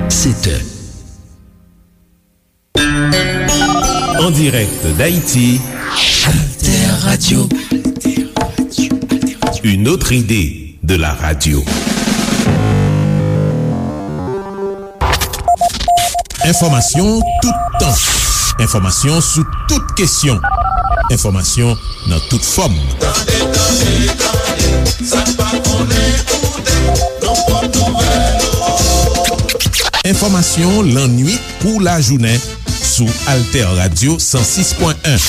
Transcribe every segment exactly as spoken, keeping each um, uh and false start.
Sept heures. En direct d'Haïti, Alter Radio. Une autre idée de la radio. Enfòmasyon toutan. Enfòmasyon sou tout kesyon. Enfòmasyon nan tout fòm. Tande, tande, tande, sa n pa konnen koute, nou pot nouvèl yo. Enfòmasyon lannuit kou lajounen sou Alter Radio san sis pwen en.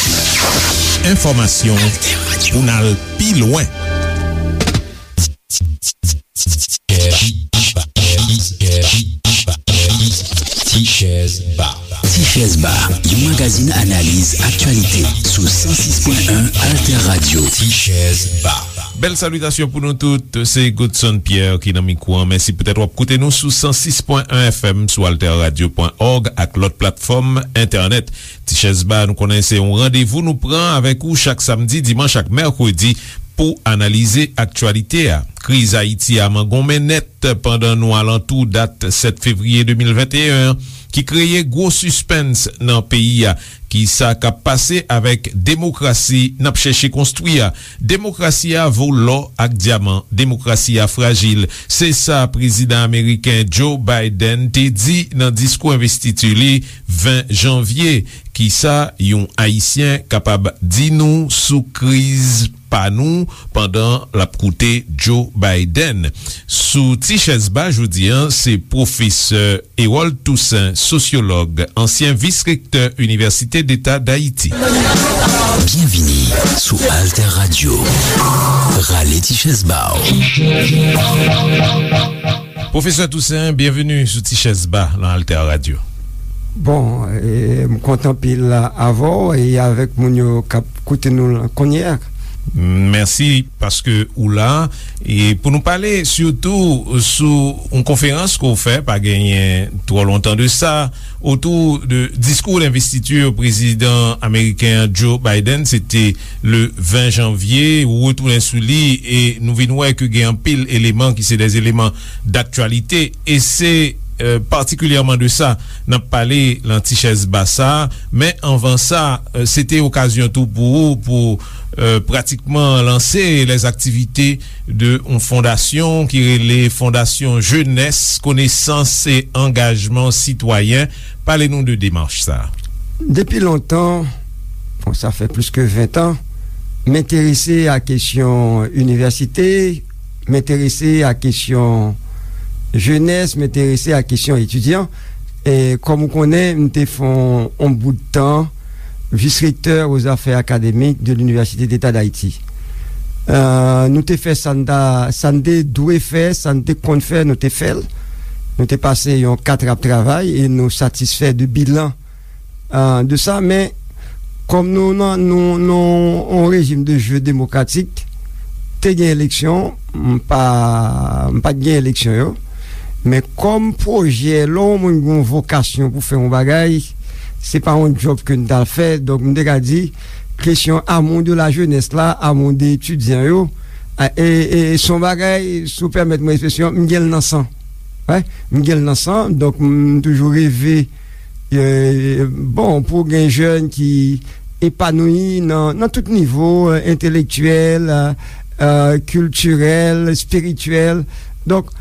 Enfòmasyon pou n al pi lwen. Ti Chèz Ba. Ti Chèz Ba, yon magazin analiz aktyalite sou san sis pwen en Alter Radio. Ti Chèz Ba. Bèl salitasyon pou nou tout, se Godson Pierre ki nan mikwo an. Mèsi poutèt w ap koute nou sou san sis pwen en F M, sou alter radio pwen org ak lòt platfòm entènèt. Ti Chèz Ba, nou konnen se yon randevou nou pran avèk ou chak samdi, dimanch ak mèkredi pou analize aktyalite a. Kriz Ayiti a mangonmen nèt pandan nou alantou dat sèt fevriye de mil venteyen an, ki kreye gwo sispens nan peyi a. Kisa k ap pase avèk demokrasi n ap chèche konstwi a? Demokrasi a vo lò ak dyaman. Demokrasi a frajil. Se sa prezidan ameriken Joe Biden te di nan diskou envestiti li ven janvye. Kisa yon Ayisyen kapab di nou sou kriz pa nou pandan l ap koute Joe Biden? Sou Ti Chèz Ba jodi a, se pwofesè Hérold Toussaint, sosyològ, ansyen vis rektè Inivèsite Deta Dayiti. Byenvini sou Alter Radio. Rale ti chèz ba w. Pwofesè Toussaint, byenveni sou Ti Chèz Ba nan Alter Radio. Bon, e, m kontan anpil avè w e avèk moun yo k ap koute nou la kounye a. Mèsi paske ou la. E pou nou pale sitou sou yon konferans ke w fè, pa genyen twò lontan de sa, otou de diskou denvestiti prezidan ameriken an, Joe Biden, se te le ven janvye, ou retounen sou li, e nou vin wè ke gen anpil eleman ki se de eleman daktyalite, e se, e, patikilyèman de sa n ap pale nan Ti Chèz Ba sa. Men anvan sa, e, se te okazyon tou pou ou, pou, e, pratikman lanse lèzaktivite de yon fondasyon ki rele Fondasyon Jenès, Konesans e Angajman Sitwayen. Pale nou de demach sa. Depi lontan, bon, sa fè plis ke ven tan, m enterese a kesyon inivèsite, m enterese a kesyon jenès, m enterese a kesyon etidyan. E kòm ou konnen, m te fè yon, yon bout tan vis rektè o zafè akademik de l'Université d'État d'Haïti. E, nou te fè sa n ta, sa n te dwe fè, sa n te konn fè, nou te fè l. Nou te pase yon kat ap travay e nou satisfè de bilan, e, de sa. Men, kòm nou nan, nou, nou, yon rejim de jeu démocratique, te gen eleksyon, m pa, m pa t gen eleksyon yo. Men kòm pwojè, lè yon moun gen yon vokasyon pou fè yon bagay, se pa yon djòb ke n t al fè. Donk, m te ka di, kesyon amour de la jeunesse la, amour de etidyan yo, e, e, e se yon bagay, si w pèmèt mwen ekspresyon, m gen l nan san. Wi, m gen l nan san. Donk, m toujou reve, e, bon, pou gen jèn ki epanouyi nan, nan tout nivo, e, entelektyèl, e, e, kiltirèl, espirityèl. Donk,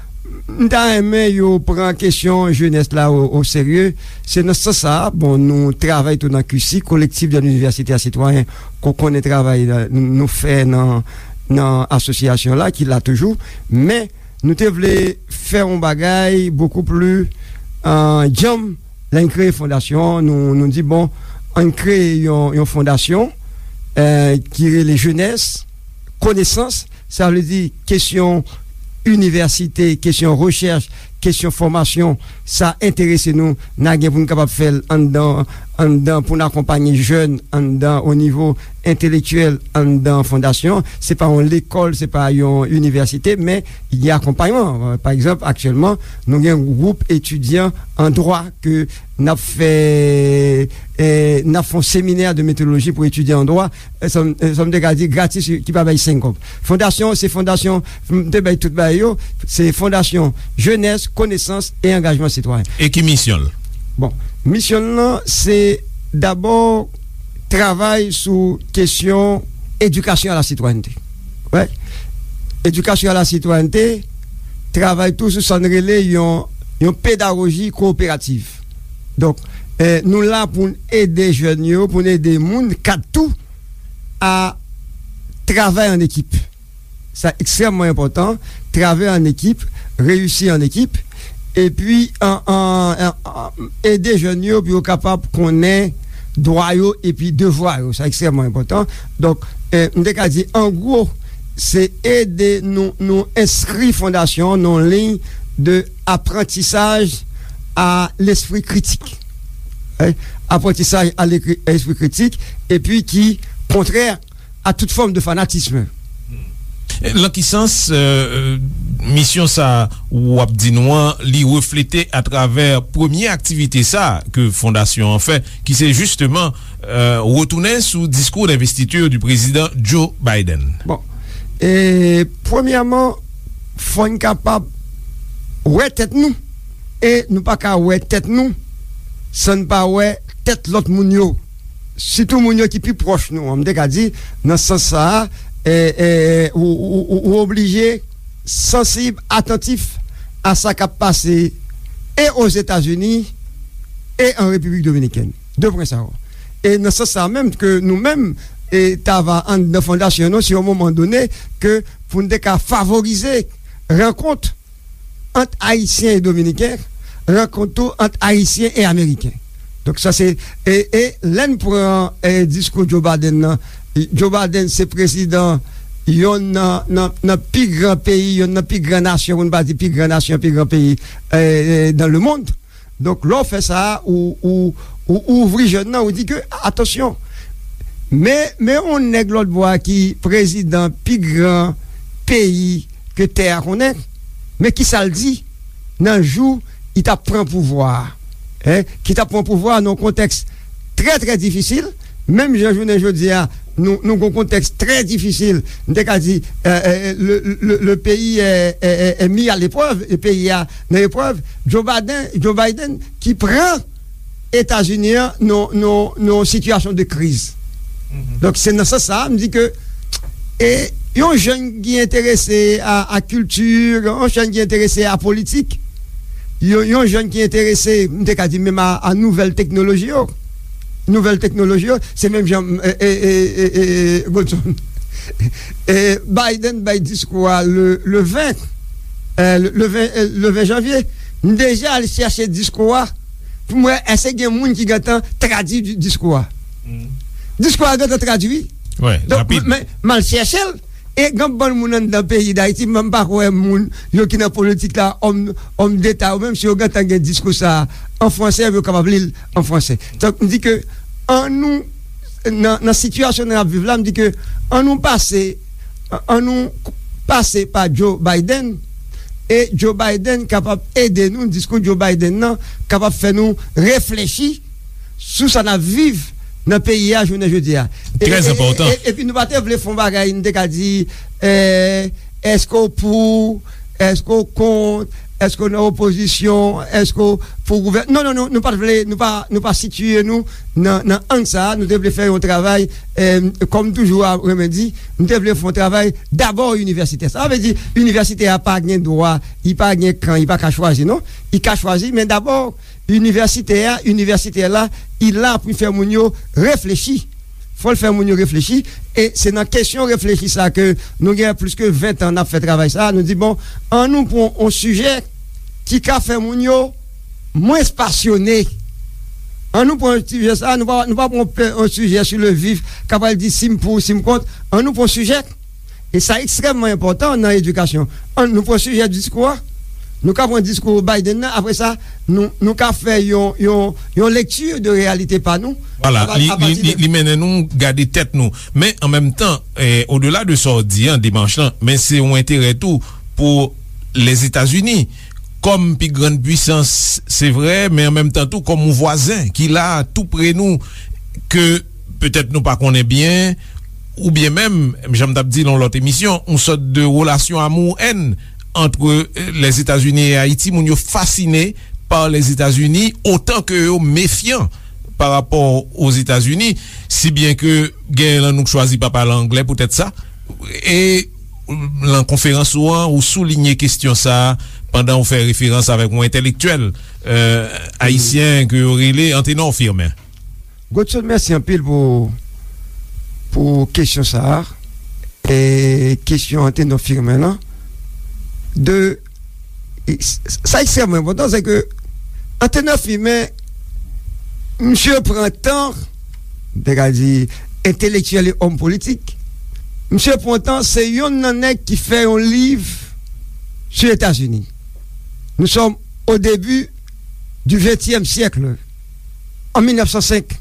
m ta renmen yo pran kesyon jenès la o, o serye. Se nan sans sa, bon, nou travay tou nan Q C, Collectif de l'Université à Citoyens, ke w konnen travay, e, nou fè nan, nan asosyasyon la, ki la toujou. Men, nou te vle fè yon bagay bokou pli, e, djanm. Lè n kreye fondasyon, nou, nou di, bon, ann kreye yon, yon fondasyon, e, ki rele Jenès, Konesans, sa vle di kesyon inivèsite, kesyon rechèch, kesyon fòmasyon, sa enterese nou, n a gen pou n kapab fè l anndan, anndan, pou n akonpanye jèn anndan, o nivo entelektyèl anndan fondasyon. Se pa yon lekòl, se pa yon inivèsite, men gen akonpayman. Pa egzanp, aktyèlman, nou gen yon gwoup etidyan an dwa ke n ap fè, eh, n ap fè yon seminè de metodoloji pou etidyan an dwa, eh, sa m, eh, sa m te ka di gratis, ki pa bay senk kòb. Fondasyon, se fondasyon, m te bay tout bagay yo, se fondasyon jenès, konesans e angajman sitwayen. E ki misyon l? Bon, misyon l lan, se dabò travay sou kesyon edikasyon a la sitwayènte. Wè. Edikasyon a la sitwayènte, travay tou sou sa n rele yon, yon pedagoji kowoperativ. Donk, eh, nou la pou n ede jèn yo, pou n ede moun, kad tou, a travay an ekip. Sa ekstrèmman enpòtan, travay an ekip, reyisi an ekip, epi an, an, an, an, ede jèn yo pou yo kapab konnen dwa yo epi devwa yo. Sa ekstrèmman enpòtan. Donk, eh, m te ka di, an gwo, se ede nou, nou enskri fondasyon nan yon liy de aprantisaj a lespri kritik. Eh, aprantisaj a lekri-, espri kritik, epi ki kontrè a tout fòm de fanatism. Lan ki sans, euh, misyon sa w ap di nou an, li reflete atravè premye aktivite sa ke fondasyon an fè, ki se jisteman, euh, retounen sou diskou d'investiture du président Joe Biden? Bon, e premyèman, fò n kapab wè tèt nou, e nou pa ka wè tèt nou san n pa wè tèt lòt moun yo. Sitou moun yo ki pi pwòch nou an. M te ka di, nan sans sa a, e, e, ou, ou, ou, ou oblije sansib, atantif a sa k ap pase e Ozetazini e an Repiblik Dominikèn. De pwen sa yo. E nan sans sa a menm ke nou menm, e, t ava anndan fondasyon nou, si yon moman done, ke pou n te ka favorize rankont ant Ayisyen e Dominiken, rankont tou ant Ayisyen e Ameriken. Donk, sa se, e, e lè n pran, e, diskou Joe Biden nan, Joe Biden se prezidan yonn nan, nan, nan pi gran peyi, yonn nan pi gran nasyon, pou n pa di pi gran nasyon, pi gran peyi, e, e, dans le monde. Donk, lè w fè sa, ou, ou, ou ouvri jèn nan, ou di ke, atansyon, men, men yon nèg lòt bò a ki prezidan pi gran peyi ke tè a konnen, men ki sa l di nan jou li t ap pran pouvwa a, en, ki t ap pran pouvwa a nan yon kontèks trè, trè difisil, menm jan jounen jodi a, nou, nou gen yon kontèks trè difisil. M te ka di, euh, euh, le, le, le pays est, est, est, est mis à l'épreuve, e peyi a nan eprèv. Joe Biden, Joe Biden ki pran Etazini an nan, nan, nan yon sitiyasyon de kriz. Donk, se nan sans sa a, m di ke, e, yon jèn ki enterese a, a kilti, yon jèn ki enterese a politik, yon, yon jèn ki enterese, m te ka di menm a, a nouvèl teknoloji yo. Nouvèl teknoloji yo, se menm jan, e, e, Godson. E, Biden bay diskou a le, le ven, e, le, le ven, e, le ven janvye. M deja al chèche diskou a pou m wè èske gen moun ki gentan tradui di-, diskou a. Diskou a gentan tradui. Donk, rapid. M, m, m al chèche l, e gen bann moun anndan peyi Dayiti, m pa kwè moun yo ki nan politik la, òm, òm deta yo, menm si yo gentan gen diskou sa a an fransè, yo kapab li l an fransè. Donk, m di ke annou, nan, nan sitiyasyon n ap viv la, m di ke annou pase, annou pase pa Joe Biden, e Joe Biden kapab ede nou, diskou Joe Biden nan kapab fè nou reflechi sou sa n ap viv nan peyi a jounen jodi a. E, trè e, enpòtan. E, e, epi nou pa te vle fè yon bagay, nou te ka di, e, èske w pou, èske w kont, èske w nan opozisyon, èske w pou gouvèn-, non, non, non, nou pa t vle, nou pa, nou pa sitiye nou nan, nan ang sa a, nou te vle fè yon travay, e, kòm toujou a renmen di, nou te vle fè yon travay dabò inivèsitè. Sa vle di, inivèsitè a pa gen dwa, li pa gen kan, li pa ka chwazi, non. Li ka chwazi, men dabò, inivèsitè a, inivèsitè la, li la pou fè moun yo reflechi. Fò l fè moun yo reflechi. E se nan kesyon reflechi sa ke nou gen plis ke ven tan n ap fè travay sa. Nou di, bon, annou pran yon sijè ki ka fè moun yo mwens pasyone. Annou pran yon sijè sa, nou pa, nou pa pran pe-, yon sijè sou le vif, k ap pral di si m pou, si m kont. Annou pran yon sijè, e sa ekstrèmman enpòtan nan edikasyon. Annou pran sijè diskou a. Nou ka pran diskou Biden nan, apre sa, nou, nou ka fè yon, yon, yon lekti de reyalite pa nou. Vwala, li, li, li, li mennen nou gade tèt nou. Men, an menm tan, eh, odela de sa w di an, demach lan, men se yon enterè tou pou Lèzetazini, kòm pi grann pwisans, se vre, men an menm tan tou, kòm yon vwazen ki la tou pre nou, ke petèt nou pa konnen byen, oubyen menm, jan m t ap di nan lòt emisyon, yon sòt de relasyon amour-haine entre, eh, Lèzetazini e Ayiti. Moun yo fasine pa Lèzetazini otan ke yo mefyan pa rapò Ozetazini, si byen ke genyen nan nou k chwazi pa pale anglè poutèt sa. E nan konferans ou an, ou soulinye kesyon sa a pandan ou fè referans avèk yon entèlektyèl, eh, ayisyen ke yo rele Antenor Firmin. Godson, mèsi anpil pou, pou kesyon sa a. E kesyon Antenor Firmin lan. De, e s-, sa ekstrèmman enpòtan, se ke Antenor Firmin, misye pran tan, m te ka di, entelektyèl e òm politik, misye pran tan, se yonn nan nèg ki fè yon liv sou Etazini. Nous sommes au début du vingtième siècle, en mil nèf san senk.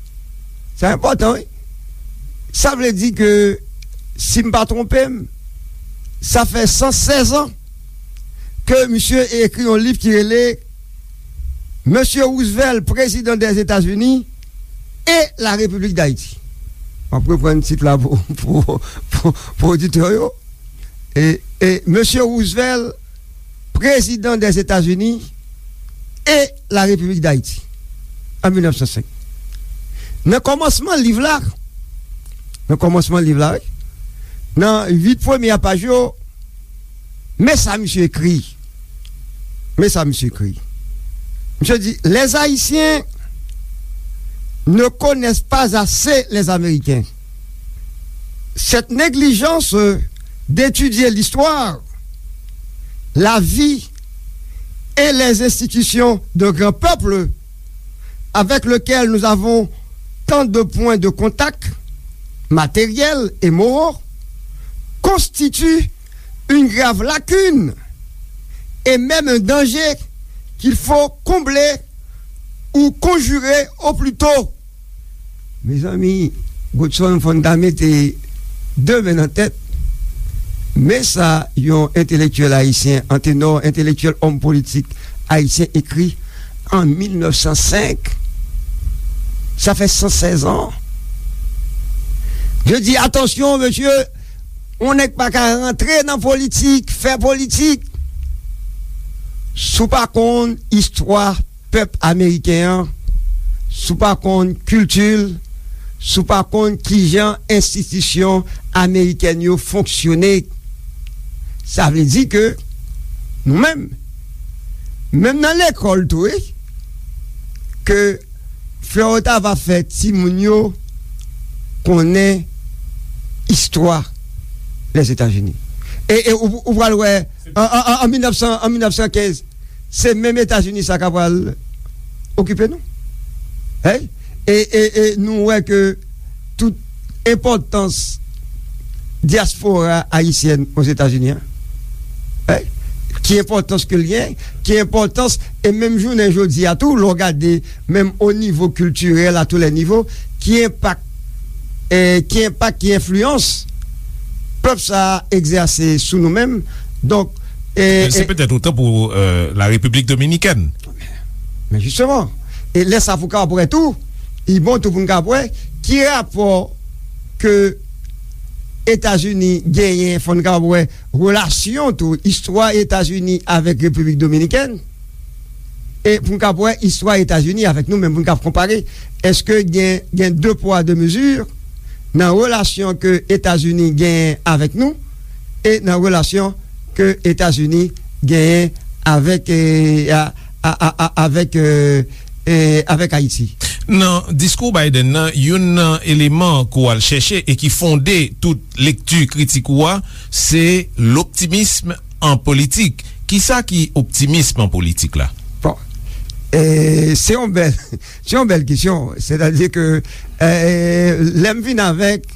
Sa enpòtan, wi. Sa vle di ke, si m pa twonpe m, sa fè san sèz an ke misye ekri yon liv ki rele Monsieur Roosevelt, Président des États-Unis et la République d'Haïti. M ap reprann tit la pou, pou, pou, pou oditè yo. E, e Monsieur Roosevelt, Président des États-Unis et la République d'Haïti, an mil nèf san senk. Nan kòmansman liv la, nan kòmansman liv la, wi, nan uit premye paj yo, men sa misye ekri. Men sa misye ekri. Misye di, Les Haïtiens ne connaissent pas assez les Américains. Cette négligence d'étudier l'histoire, la vie et les institutions de grands peuples avec lesquels nous avons tant de points de contact matériels et moraux constitue une grave lacune et même un danger qu'il faut combler ou conjurer au plus tôt. Mezanmi, Godson, fò n ta mete de men nan tèt. Men sa yon entelektyèl ayisyen, Antenor, entelektyèl, òm politik ayisyen ekri an mil nèf san senk. Sa fè san sèz an. Je dis, attention, monsieur, on nèg pa ka rantre nan politik, fè politik, si w pa konn istwa pèp ameriken an, si w pa konn kilti l, si w pa konn kijan enstitisyon amerikèn yo fonksyone. Sa vle di ke nou menm, menm nan lekòl tou, wi, ke Florota va fè timoun yo konnen istwa Lèzetazini. E, e ou, ou pral wè, an, an, an, an mil nèf san, an mil nèf san kenz, se menm Etazini sa k ap pral okipe nou. Hey? E, e, e nou wè ke tout enpòtans dyaspora ayisyèn Ozetazini an, hey? Ki enpòtans ke l gen, ki enpòtans, e menm jounen jodi a tou, lè w gade menm o nivo kiltirèl, a tou lè nivo, ki enpak, eh, ki enpak, ki enfliyans pèp sa a egzèse sou nou menm. Donk, eh, se eh, petèt otan pou, eh, la Repiblik Dominikèn. Men jisteman, e lè sa pou kapab wè tou, li bon tou pou n kapab wè ki rapò ke Etazini genyen, fò n kapab wè relasyon tou, istwa Etazini avèk Repiblik Dominikèn, e pou n kapab wè istwa Etazini avèk nou menm, pou n kapab konpare, èske gen, gen de pwa, de mezi nan relasyon ke Etazini genyen avèk nou e nan relasyon ke Etazini genyen avèk, eh, a, a, a, a, avèk, eh, eh, avèk Ayiti. Nan diskou Biden nan, youn nan eleman ke w al chèche e ki fonde tout lekti kritik ou a, se loptimism an politik. Kisa ki optimism an politik la? Bon, eh, se yon bèl, se yon bèl kesyon. Sètadi ke, eh, lè m vin avèk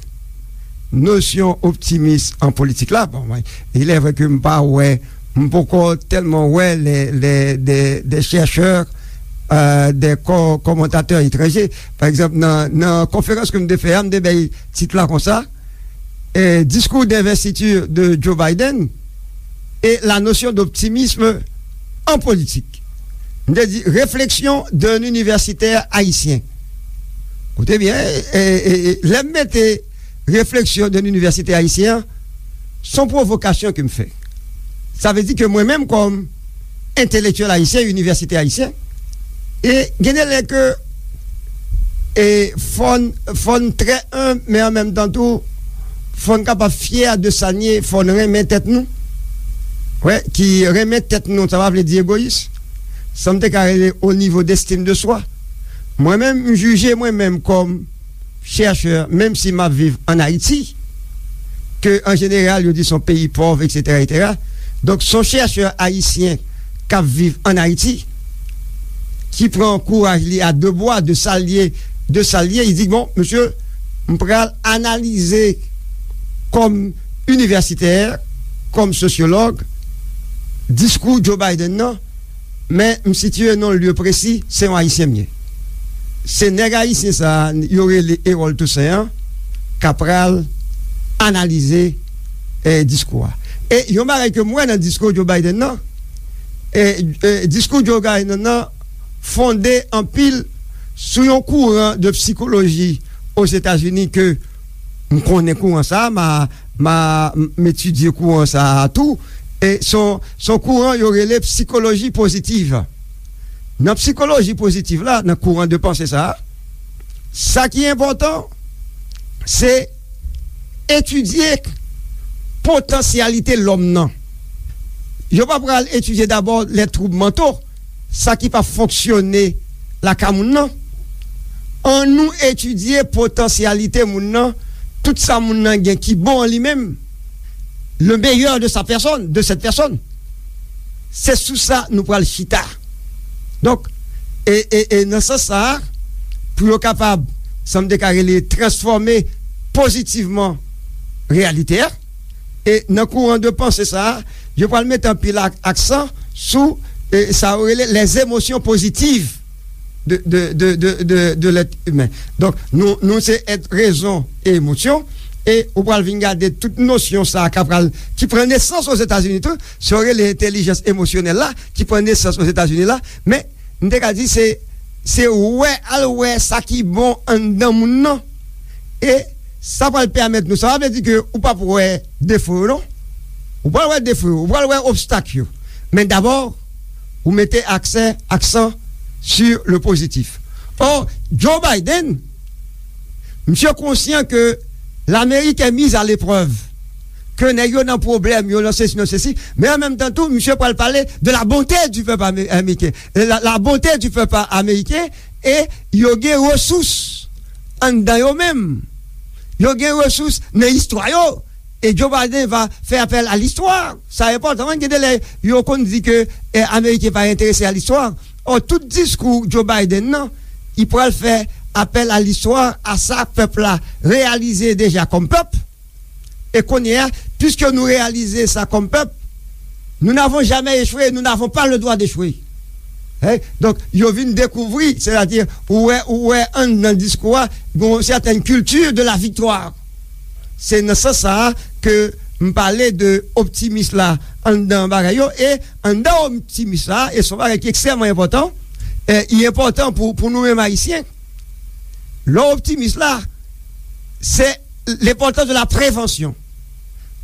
nosyon optimis an politik la, bon, mwen, il est vrai ke m pa wè M poko tèlman wè lè, lè, dè, dè chèchè, euh, dè kò, kòmantatè etranje. Pa egzanp, nan, nan konferans ke m te fè a, m te bay tit la konsa, eh, Discours d'investiture de Joe Biden et la notion d'optimisme en politique. M te di, réflexion d'un universitaire haïtien. Koute byen, eh, eh, eh, lè m mete réflexion d'un universitaire haïtien, se yon pwovokasyon ke m fè. Sa vle di ke mwen menm kòm entelektyèl ayisyen, inivèsitè ayisyen, e gen de lè ke, e fò n, fò n trè enb, men an menm tan tou, fò n kapab fyè de sa n ye, fò n renmen tèt nou. Wè, ki renmen tèt nou, sa pa vle di egoyis. Sa m te ka rele au niveau d'estime de soi. Mwen menm, m jije mwen menm kòm chèchè, menm si m ap viv ann Ayiti, ke an jeneral, yo di se yon peyi pòv, etsetera, etsetera. Donk, se yon chèchè ayisyen k ap viv ann Ayiti, ki pran kouraj li a de bwa, de sa l ye, de sa l ye, li di, bon, mesye, m pral analize kòm inivèsitè, kòm sosyològ, diskou Joe Biden nan, men m sitiye nan yon lye presi, se yon Ayisyen m ye. Se nèg ayisyen sa a, yo rele Erol Toussaint an, k ap pral analize, eh, diskou a. E yon bagay ke m wè nan diskou Joe Biden nan, eh, eh, diskou Joe Biden nan fonde anpil sou yon kouran de sikoloji Ozetazini ke m konnen kouran sa a, m a, m a, m etidye kouran sa a tou. E se yon, se yon kouran yo rele sikoloji pozitiv. Nan sikoloji pozitiv la, nan kouran de panse sa a, sa ki enpòtan, se etidye potansyalite lòm nan. Yo pa pral etidye dabò lè twoub manto, sa ki pa fonksyone lakay moun nan. Annou etidye potansyalite moun nan, tout sa moun nan gen ki bon an li menm, le meilleur de sa personne, de cette personne. Se sou sa nou pral chita. Donk, e, e, e nan sans sa a, pou yo kapab, sa m te ka rele, transfòme pozitivman reyalite a, e nan kouran de panse sa a, yo pral mete anpil ak-, aksan sou, e, sa yo rele les émotions positives de, de, de, de, de, de l'être humain. Donk, nou, nou se èt rezon e emosyon, e ou pral vin gade tout nosyon sa a k ap pral, ki pran nesans Ozetazini tou, sa yo rele entèlijans emosyonèl la, ki pran nesans Ozetazini la, men m te ka di se, se wè, al wè sa ki bon anndan moun nan, e sa pral pèmèt nou, sa pa vle di ke ou p ap wè defo yo non, ou pral wè defo yo, ou pral wè obstak yo, men dabò, ou mete aksè, aksan sur le positif. Or, Joe Biden, misye konsyan ke Lamerik est mise à l'épreuve, ke nèg yo nan pwoblèm, yo nan sesi, nan sesi, men an menm tan tou, misye pral pale de la bonté du peuple américain, la, la bonté du peuple américain, e yo gen resous anndan yo menm, yo gen resous nan istwa yo, e Joe Biden va fè apèl a listwa. Sa enpòtan, gen de lè yo konn di ke, eh, Ameriken pa enterese a listwa. Ò, tout diskou Joe Biden nan, li pral fè apèl a listwa, a sa pèp la reyalize deja kòm pèp. E kounye a, piske nou reyalize sa kòm pèp, nous n'avons jamais échoué, nous n'avons pas le droit d'échouer. Hein? Donk, yo vin dekouvri, sètadi, ou wè, ou wè anndan diskou a, gon sètèn kilti de la viktwa. Se nan sans sa a ke m pale de optimis la anndan bagay yo, e anndan optimis la, e se yon bagay ki ekstrèmman enpòtan, e li enpòtan pou, pou nou menm Ayisyen. Lè w optimis la, se lenpòtans de la prevansyon.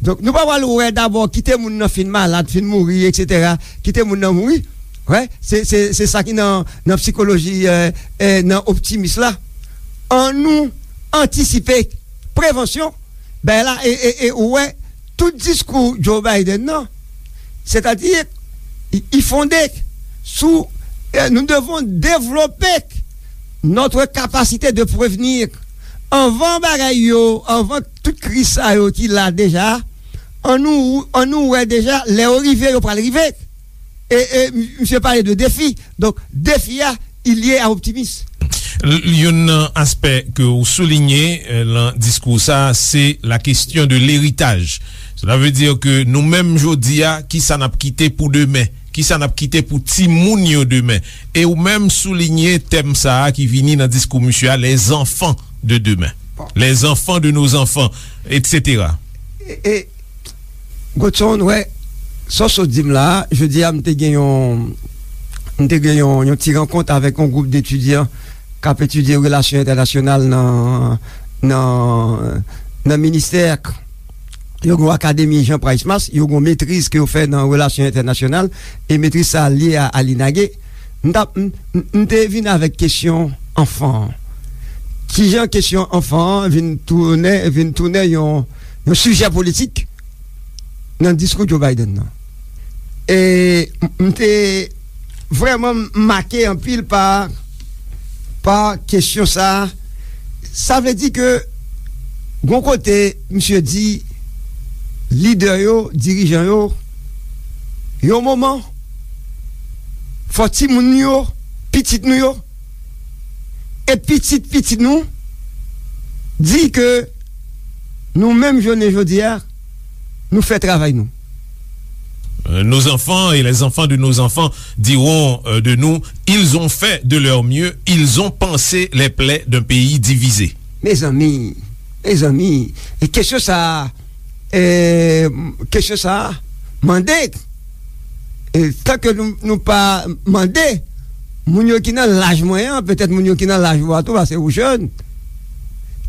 Donk, nou pa pral wè dabò kite moun nan fin malad, fin mouri, etsetera. Kite moun nan mouri. Wè, se, se, se sa ki nan, nan sikoloji, eh, eh, nan optimis la. Annou antisipe, prevansyon, ben la, e, e, e ou wè, tout diskou Joe Biden nan, sètadi, i, i fonde sou, eh, nous devons développer notre capacité de prévenir. Anvan bagay yo, anvan tout kriz sa yo ki la deja, annou, annou wè deja, lè yo rive, yo pral rive. E, e, m-, misye pale de defi. Donk, defi a, li lye a optimis. L-, youn nan aspè ke w soulinye, eh, lan diskou sa, se la kesyon de leritaj. Cela veut dire que nou menm jodi a, kisa n ap kite pou demen? Kisa n ap kite pou timoun yo demen? E ou menm soulinye tèm sa a ki vini nan diskou misye a, les enfants de demain, les enfants de nos enfants, et cetera. E, e, Godson, wè, sa w sot di m la, jodi a, m te gen yon, m te gen yon, yon ti rankont avèk yon gwoup d etidyan k ap etidye relasyon entènasyonal nan, nan, nan ministè. Yo gen yon akademi Jean Price Mars, yo gen yon metriz ke yo fè nan relasyon entènasyonal, e metriz sa a lye a, a l'INAGE. M t ap, m, m, m te vin avèk kesyon anfan an. Kijan kesyon anfan an vin tounen, vin tounen yon, yon sijè politik nan diskou Joe Biden nan? E m, m te vrèman make anpil pa, pa kesyon sa a. Sa vle di ke, gon kote, misye di, lidè yo, dirijan yo, yon moman, fò timoun yo, pitit nou yo, e pitit pitit nou, di ke nou menm jounen jodi a, nou fè travay nou. Euh, nos enfants et les enfants de nos enfants diront, euh, de nous, ils ont fait de leur mieux, ils ont pansé les plaies d'un pays divisé. Mezanmi, mezanmi, e kesyon sa a, e, kesyon sa a, mande, e, tanke nou, nou pa mande, moun yo ki nan laj mwen an, petèt moun yo ki nan laj ou a tou, paske ou jèn,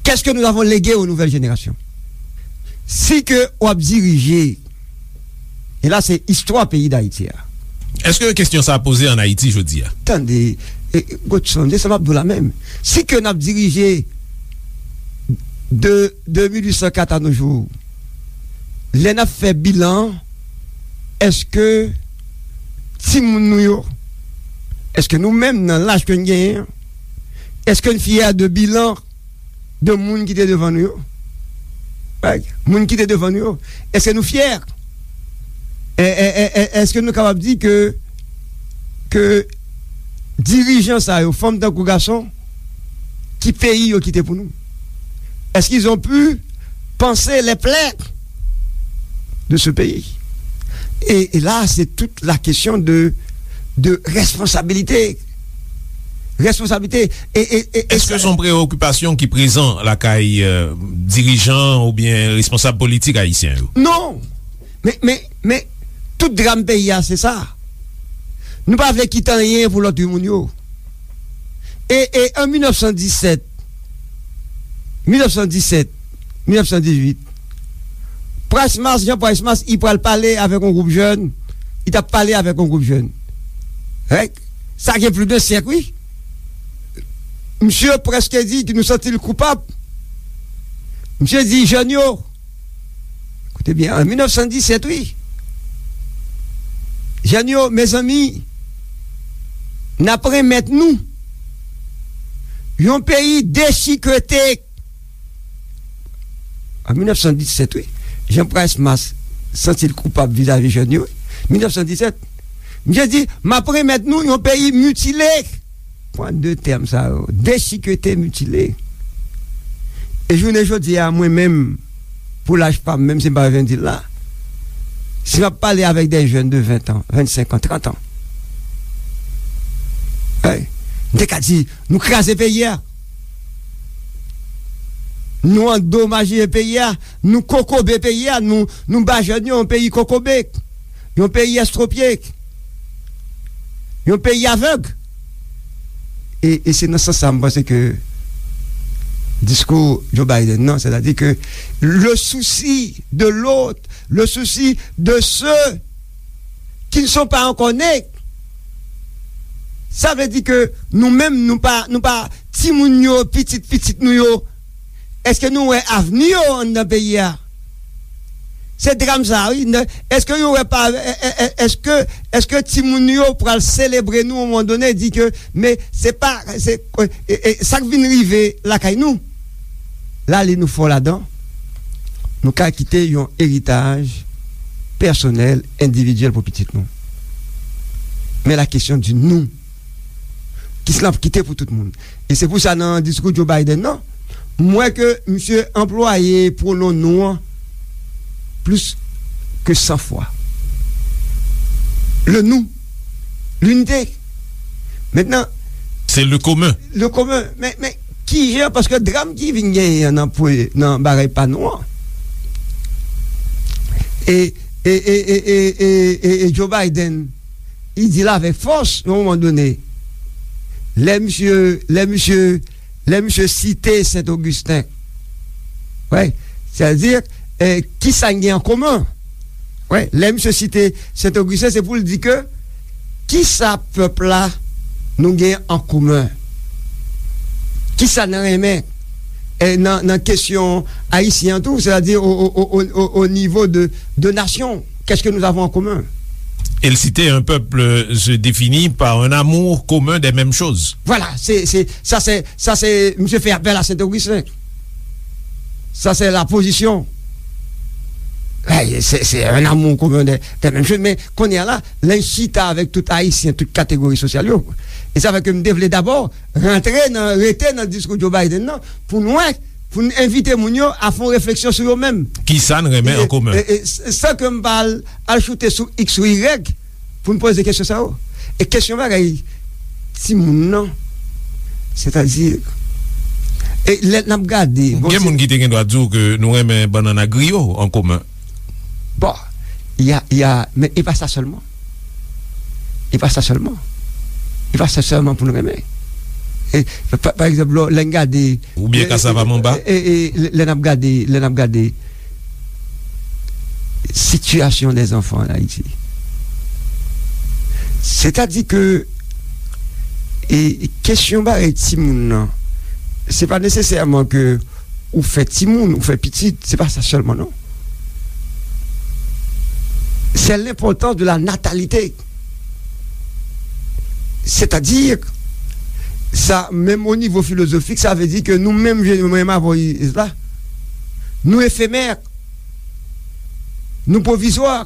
qu'est-ce que nous avons légué aux nouvelles générations? Si ke w ap dirije, e la se istwa peyi Dayiti a. Èske kesyon sa a poze ann Ayiti jodi a? Tande, e, Godson, se sa m ap di w la menm. Si ke n ap dirije de, de mil uit san kat a nos jours, lè n ap fè bilan, èske timoun nou yo, èske nou menm nan laj ke n genyen an, èske n fyè de bilan de moun ki te devan nou yo? Right? Moun ki te devan nou yo, èske nou fyè? E, e, e, e, èske nou kapab di ke, ke dirijan sa yo, fanm tankou gason, ki peyi yo kite pou nou? Est-ce qu'ils ont pu panser les plaies de ce pays? Et, et là, c'est toute la question de, de responsabilité. Responsabilité. E, e, e, e Èske sa se yon prewokipasyon ki prezan lakay, euh, dirijan oubyen responsab politik ayisyen yo? Non. Men, men, men, tout dram peyi a, se sa. Nou pa vle kite anyen pou lòt moun yo. E, e an mil nèf san disèt, mil nèf san disèt, mil nèf san dizuit, Price Mars, Jean Price Mars, li pral pale avèk yon gwoup jèn, li t ap pale avèk yon gwoup jèn. Règ, sa gen plis de syèk, wi. Misye prèske di ke nou santi l koupab. Misye di jèn yo, koute byen, an mil nèf san disèt, wi. Jèn yo, mezanmi, n ap remèt nou yon peyi dechikete. An mil nèf san disèt, wi. Jean Price Mars santi l koupab vizavi jèn yo, wi. Mil nèf san disèt. Misye di, m ap remèt nou yon peyi mitile. Pran de tèm sa yo, dechikete, mitile. E jounen jodi a, mwen menm, pou laj pa m, menm si m pa vin di l la, si m ap pale avèk de jèn de ven an, vennsenk an, trant an, hey, m te ka di, nou kraze peyi a. Nou andomaje peyi a, nou kokobe peyi a, nou, nou ba jèn yo yon peyi kokobe, yon peyi estwopye, yon peyi avèg. E, e se nan sans sa, m panse ke diskou Joe Biden nan, sètadi ke le souci de l'autre, le souci de ceux qui ne sont pas encore nés, sa vle di ke nou menm, nou pa, nou pa, timoun yo, pitit pitit nou yo, èske nou wè avni yo anndan peyi a? Se dram sa, wi. Èske yo wè pa, è, è, è, èske, èske timoun yo pral selebre nou yon moman done, di ke, men se pa, se, e, e, sa k vin rive lakay nou? La, li nou fò ladan, nou ka kite yon eritaj pèsonèl, endividyèl pou pitit nou. Men la kesyon di nou, kisa n ap kite pou tout moun? E se pou sa, nan diskou Joe Biden nan, m wè ke misye anplwaye pwonon nou an, plus que cent fois. Le nous, l'unité. Maintenant, c'est le commun. Le commun. Men, men kijan, paske dram ki vin genyen nan, nan bagay pa nou an, e, e, e Joe Biden, li di l avèk fòs, yon moman done, lè misye, lè misye, lè misye site Sent Ogisten, wè, sètadi, eh, kisa n gen an komen? Wè, lè misye site Sent Ogisten, se pou l di ke kisa pèp la nou gen an komen? Kisa n renmen, eh, nan, nan kesyon ayisyen an tou, sètadi o, o, o, o, o nivo de, de nasyon? Qu'est-ce que nous avons en commun? Et le citer un peuple se définit par un amour commun des mêmes choses. Voilà, c'est, c'est, ça c'est, ça c'est, monsieur fait appel à Saint-Augustin. Ça c'est la position. Hey, c'est, c'est un amour commun des, des mêmes choses. Men kounye a la, lè n chita avèk tout Ayisyen, tout kategori sosyal yo. E sa fè ke m te vle dabò rantre nan, rete nan diskou Joe Biden nan, pou n wè, pou n envite moun yo a fè yon refleksyon sou yo menm. Kisa n renmen an komen? E, e, s-, san ke m pa al, al choute sou X ou Y pou n poze kesyon sa yo. E kesyon bagay timoun nan, sètadi, e lè n ap gade, bon, gen moun ki te gen dwa di w ke nou renmen bannann ak griyo an komen. Bon, y a, y a, men e pa sa sèlman. E pa sa sèlman. E pa sa sèlman pou n renmen. E, pa, pa egzanp, lè, lè n gade, oubyen e, kasav a manba? E, e, e, lè, lè n ap gade, lè n ap gade sitiyasyon dè zanfan an Ayiti. Sètadi ke, e, kesyon bagay timoun nan, se pa nesesèman ke ou fè timoun, ou fè pitit, se pa sa sèlman, non. C'est l'importance de la natalité. Sètadi, sa, menm o nivo filozofik, sa vle di ke nou menm, je, menm avè la, nou efemè, nou pwovizwa.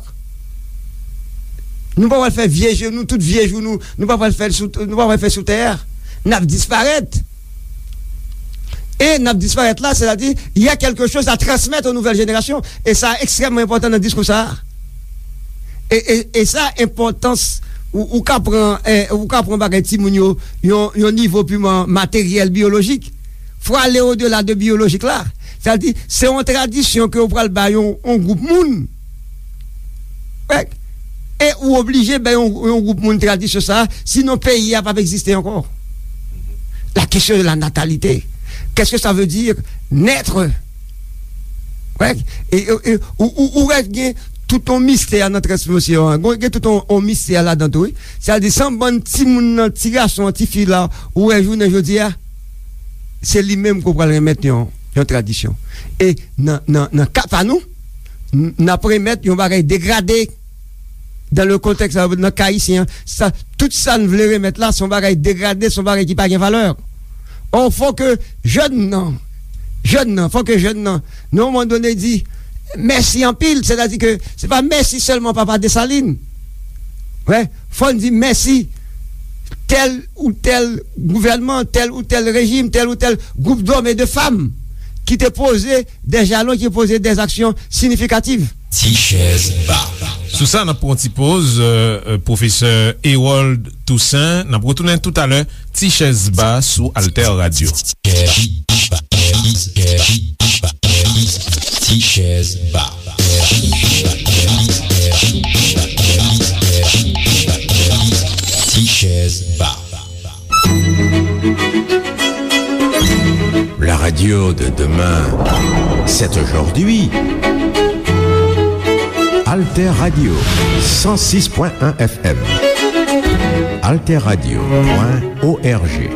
Nou pa pral fè vye je nou, tout vye jou nou, nou pa pral fè l sou, nou pa pral fè sou tè a. N ap disparèt. E n ap disparèt la, sètadi, il y a quelque chose à transmettre aux nouvelles générations. E sa ekstrèmman enpòtan nan diskou sa a. E, e, e sa, enpòtans, ou, ou ka pran, eh, ou ka pran bagay timoun yo, yon, yon nivo piman materyèl, biyolojik. Fò ale odela de biyolojik la. Sètadi, se yon tradisyon ke ou pral bay yon, yon gwoup moun. Wè. E ou oblije bay yon, yon gwoup moun tradisyon sa, sinon peyi a p ap egziste ankò. La question de la natalité. Qu'est-ce que ça veut dire naître? Wè. E, e, e, ou, ou, ou wè gen tout yon mistè nan transmisyon an. Gen, gen tout yon, yon mistè ladan tou, wi. Sètadi, se yon bann timoun nan, ti gason an, ti fi la, ou wè jounen jodi a, se li menm ke w pral remèt yon, yon tradisyon. E nan, nan, nan ka pa nou, n-, n ap remèt yon bagay degrade. Dan le kontèks, nan ka ayisyen an, sa, tout sa n vle remèt la, se yon bagay degrade, se yon bagay ki pa gen valè. Ò, fò ke jèn nan, jèn nan, fò ke jèn nan, nan yon moman done, di mèsi anpil, sètadi ke se pa mèsi sèlman Papa Desalin. Wè, fò n di mèsi tèl ou tèl gouvènman, tèl ou tèl rejim, tèl ou tèl gwoup dòm e de fanm ki te poze dè jalon, ki poze dè aksyon siyifikatif. Ti chèz ba. Sou sa, n ap pran ti poz, euh, euh, pwofesè Herold Toussaint. N ap retounen toutalè. Ti chèz ba sou Alter Radio. Ti chèz ba. Ti chèz ba. La radio de demain, c'est aujourd'hui. Alter Radio, cent six point un F M. Alter Radio point O R G.